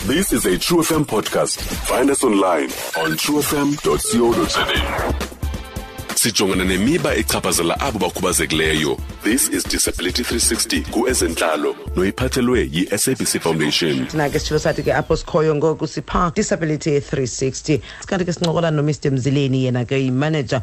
This is a True FM podcast. Find us online on truefm.co.za. Sijongana nemiba echaphazela abo bakhubazekileyo. This is Disability 360 kuezentlalo noyiphathelwe yi-SABC Foundation. Thina ke sitshilo sathi ke apho sikhoyo ngoku sipha Disability 360. Sikanti ke sincokola noMr Mzileni, yena ke yimanager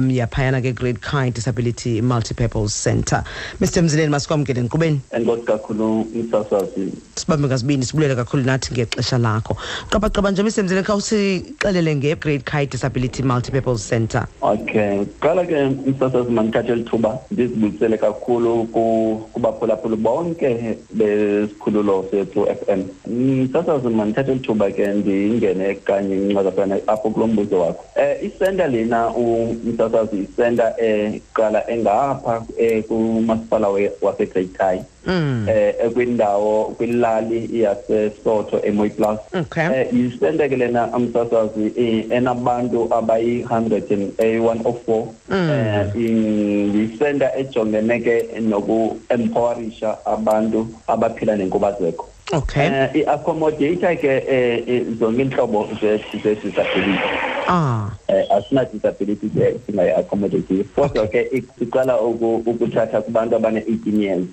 yaphayana ke Great Kai Disability Multipurpose Centre. Mr Mzileni, masikwamkele enkqubeni. Enkosi kakhulu, msasazi. Sibambe ngazibini, sibulele kakhulu nathi ngexesha lakho. Qabaqaba nje, Mr Mzileni, khawusixelele nge-Great Kai Disability Multipurpose Centre. Okay, qala ke, msasazi, mandithathe eli thuba ndizibulisele kakhulu kubaphulaphuli bonke besikhululo sethu FM. Msasazi, mandithathe eli thuba ke ndingene kanye incazafana apho kulo mbuzo wakho. Isenta lena, umsasazi, isenta eqala engapha kumasipala waseGreat Kai, ekwindawo kwilali yaseSotho eMooiplaas. Isenta ke lena, umsasazi, enabantu abayi-104. Yisenta ejongene ke noku-empowerisha abantu abaphila nenkubazeko. I-accommodate ke zonke iintlobo ze-disability. Asina disability ke singayi-accommodate, kodwa ke siqala ukuthatha kubantu abane-18 years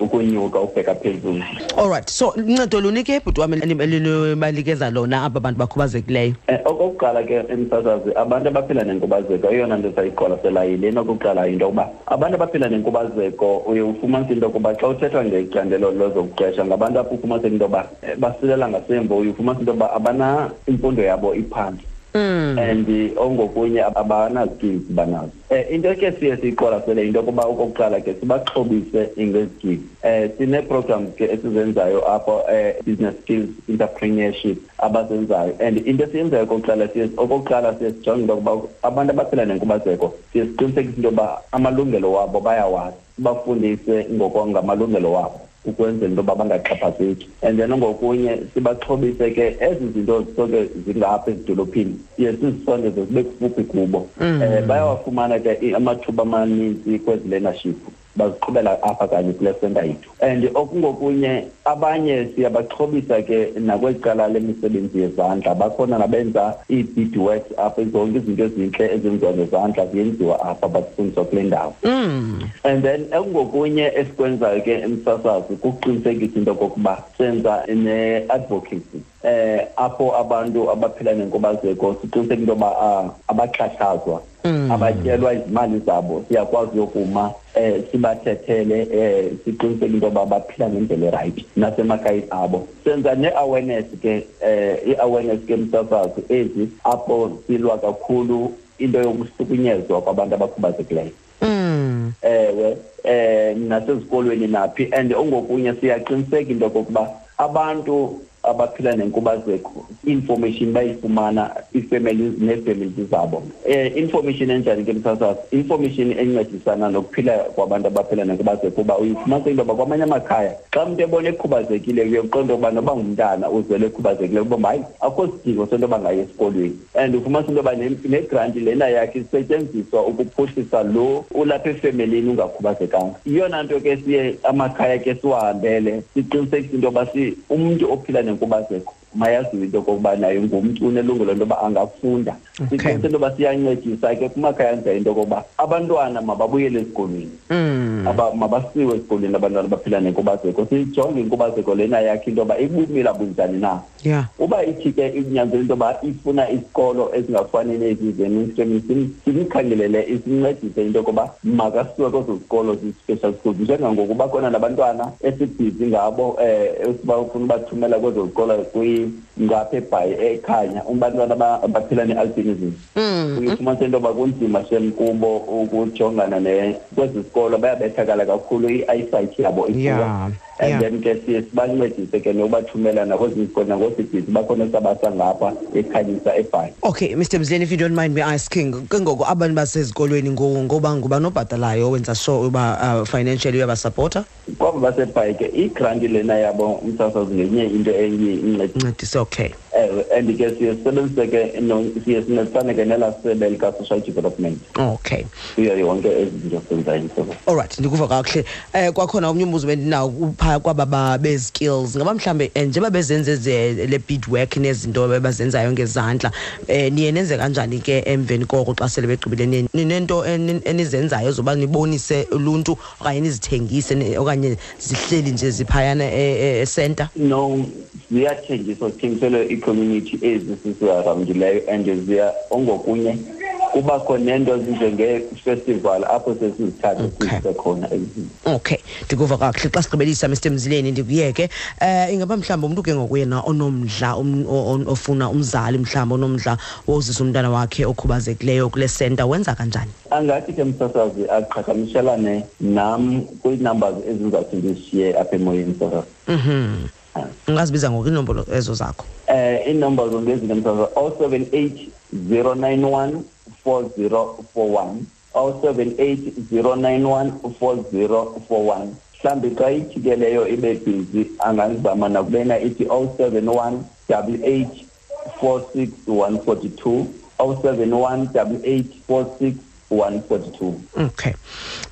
ukunyuka ukubheka phezulu. All right, so uncedo luni ke, bhuti wam, elibanikeza lona aba bantu bakhubazekileyo? Okokuqala ke, emsasazi, abantu abaphila nenkubazeko, eyona nto sayiqwalaselayo yilena. Okokuqala yinto yokuba abantu abaphila nenkubazeko, uye ufumanise into yokuba xa uthethwa ngecandelo lezokuqesha, ngabantu apho ufumaniseka into yoba basilela ngasemva. Uye ufumanise into yoba abana imfundo yabo iphantsi and ongokunye abana-skills banazo. Into ke siye siyiqwalasele yinto yokuba okokuqala ke sibaxhobise ngezi-skills. Sinee-programs ke esizenzayo apho, business skills, entrepreneurship abazenzayo. And into esiyenzayo okokuqala, siye okokuqala siye sijonge into yokuba abantu abaphila nenkubazeko, siye siqinisekise into yoba amalungelo wabo bayawazi, sibafundise ngamalungelo wabo ukwenzela into yoba bangaxhaphazeki. And then ngokunye sibaxhobise ke ezi zinto zisoke zingapha ezidolophini, siye sizisondeze zibe kufuphi kubo. Bayawafumana ke amathuba amaninzi kwezi learnership, baziqhubela apha kanye kule senta yethu. And okungokunye abanye siyabaxhobisa ke nakweli cala lemisebenzi yezandla. Bakhona nabenza ii-beadworks apha, zonke izinto ezintle ezenziwa ngezandla ziyenziwa apha, bazifundiswa kule ndawo. And then okungokunye esikwenzayo ke, emsasazi, kukuqinisekisa into okokuba senza ne-advocacy apho abantu abaphila nenkubazeko siqiniseka into yoba abaxhatshazwa, abatyelwa izimali zabo. Siyakwazi yokuma sibathethele, siqiniseke into yoba baphila ngendlela erayithi nasemakhayeni abo. Senza ne-awareness ke, i-awareness ke, msasazi, ezi apho silwa kakhulu into yokuhlukunyezwa kwabantu abakhubazekileyo. Ewe, nasezikolweni naphi. And ongokunye siyaqiniseka into yokokuba abantu abaphila nenkubazeko information bayifumana, ii-families nee-families zabo. Information enjani ke, msasazi? Information encedisana nokuphila kwabantu abaphila nenkubazeko, kuba uyifumanisa into yoba kwamanye amakhaya xa umntu ebona ekhubazekile, uye uqonde ukuba noba ngumntana uzelwe ekhubazekile, ukuba hayi, akukho sidingo sento yoba ngaye esikolweni. And ufumanisa into yoba negranti lena yakhe isetyenziswa ukuphuhlisa lo ulapha efemelini ungakhubazekanga. Yiyona nto ke siye amakhaya ke siwahambele, siqinisekise into yoba umntu ophila nenkubazeko mayaziwe into okokuba naye ngumntu, unelungelo into yoba angafunda. Siqiniseke into yoba siyancedisa ke kumakhaya anjalo into yokokuba abantwana mababuyele esikolweni. Mabasiwe esikolweni abantwana abaphila nenkubazeko, sijonge inkubazeko lena yakhe into yoba ibumila bunjani na. Uba ithi ke inyanzela into yoba ifuna isikolo ezingafani nezi ze-mainstream, simkhangelele, sincedise into yokuba makasiwe kwezo zikolo zi-special schools. Njengangoku bakhona nabantwana esibhizi ngabo, esibafuna ubathumela kwezo zikolo ngapha eBhayi, eKhanya, abantwana abaphila ne-albinism. Uye ufumanise into yoba kunzima shem kubo ukujongana kwezi zikolo, bayabethakala kakhulu, i-eyesight yabo ipoor. And then ke siye sibancedise ke nokubathumela nakwezinye izikolo, nangosibhizi bakhona sabasa ngapha eKhanyisa, eBhayi. Okay, Mr Mzileni, if you don't mind me asking, ke ngoku abantu basezikolweni ngoba ngubani obhatalayo, wenza sure uba financially uyabasapota? Kwabo baseBhayi ke, igranti lena yabo, umsasazi, ngenye into enye incedise. Incedise, okay. Ewe. And ke siye sisebenzise ke, siye sincedisane ke nelaa sebe lika-social development. Kuyo yonke ezi zinto senzayo. Alright, ndikuva kakuhle. Kwakhona omnye umbuzo bendinawo phaa kwaba bezi-skills, ngaba mhlawumbe njengoba bezenze le beadwork nezinto abazenzayo ngezandla, niye nenze kanjani ke emveni koko xa sele begqibile? Ninento enizenzayo zoba nibonise uluntu okanye nizithengise, okanye zihleli nje ziphayana e-center? No, ziyathengiswa, zithengiselwe ii-community ezi sisiarawundileyo, and ziya ongokunye kubakho nento ezinjenge-festival apho sesizithathe sizise khona. Okay, ndikuva kakuhle. Xa sigqibelisa, Mr Mzileni, ndikuyeke. Ingaba mhlawumbi umntu ke ngokuyena onomdla, ofuna, umzali mhlawumbi onomdla wozisa umntana wakhe okhubazekileyo kule center, wenza kanjani? Angathi ke, msasazi, aqhagamshelane nam kwii-numbers ezizawuthi ndizishiye apha emoyeni, msasazi. Ungazibiza ngoku iinombolo ezo zakho? Iinombolo ngezi ke, msasazi: 078 091 4041, 078 091 4041. Mhlawumbi xa ithi ke leyo ibe busy, angazama nakubena ithi 071 88 46 142, 071 88 46 142. Okay,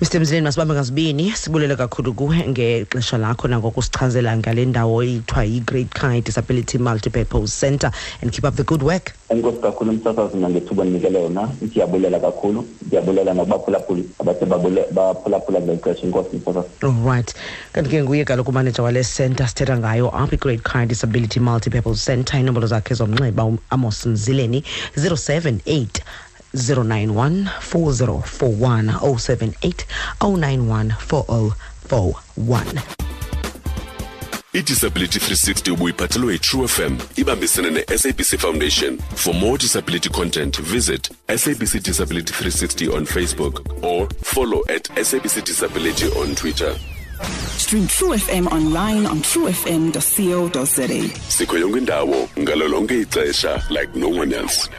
Mr Mzileni, masibambe ngazibini, sibulele kakhulu kuwe ngexesha lakho nangokusichazela ngale ndawo ithiwa yi-Great Kai Disability Multipurpose Center, and keep up the good work. Enkosi kakhulu, msasazi, nangethuba ndinikele yona. Ndiyabulela kakhulu, ndiyabulela nakubaphulaphuli abathe baphulaphula ngeli xesha. Inkosi, msasazi. Alright, kanti ke nguye kaloku umaneja wale center sithetha ngayo apha, i-Great Kai Disability Multipurpose Center. Inombolo zakhe zomnxeba, Amos Mzileni, 078 091 4041, 078 091 4041. I-Disability 360 ubuyiphathelwe yi-True FM ibambisene ne-SABC Foundation. For more disability content, visit SABC Disability 360 on Facebook or follow @SABCDisability on Twitter. Stream True FM online on truefm.co.za. Sikho yonke indawo ngalo lonke ixesha like no one else.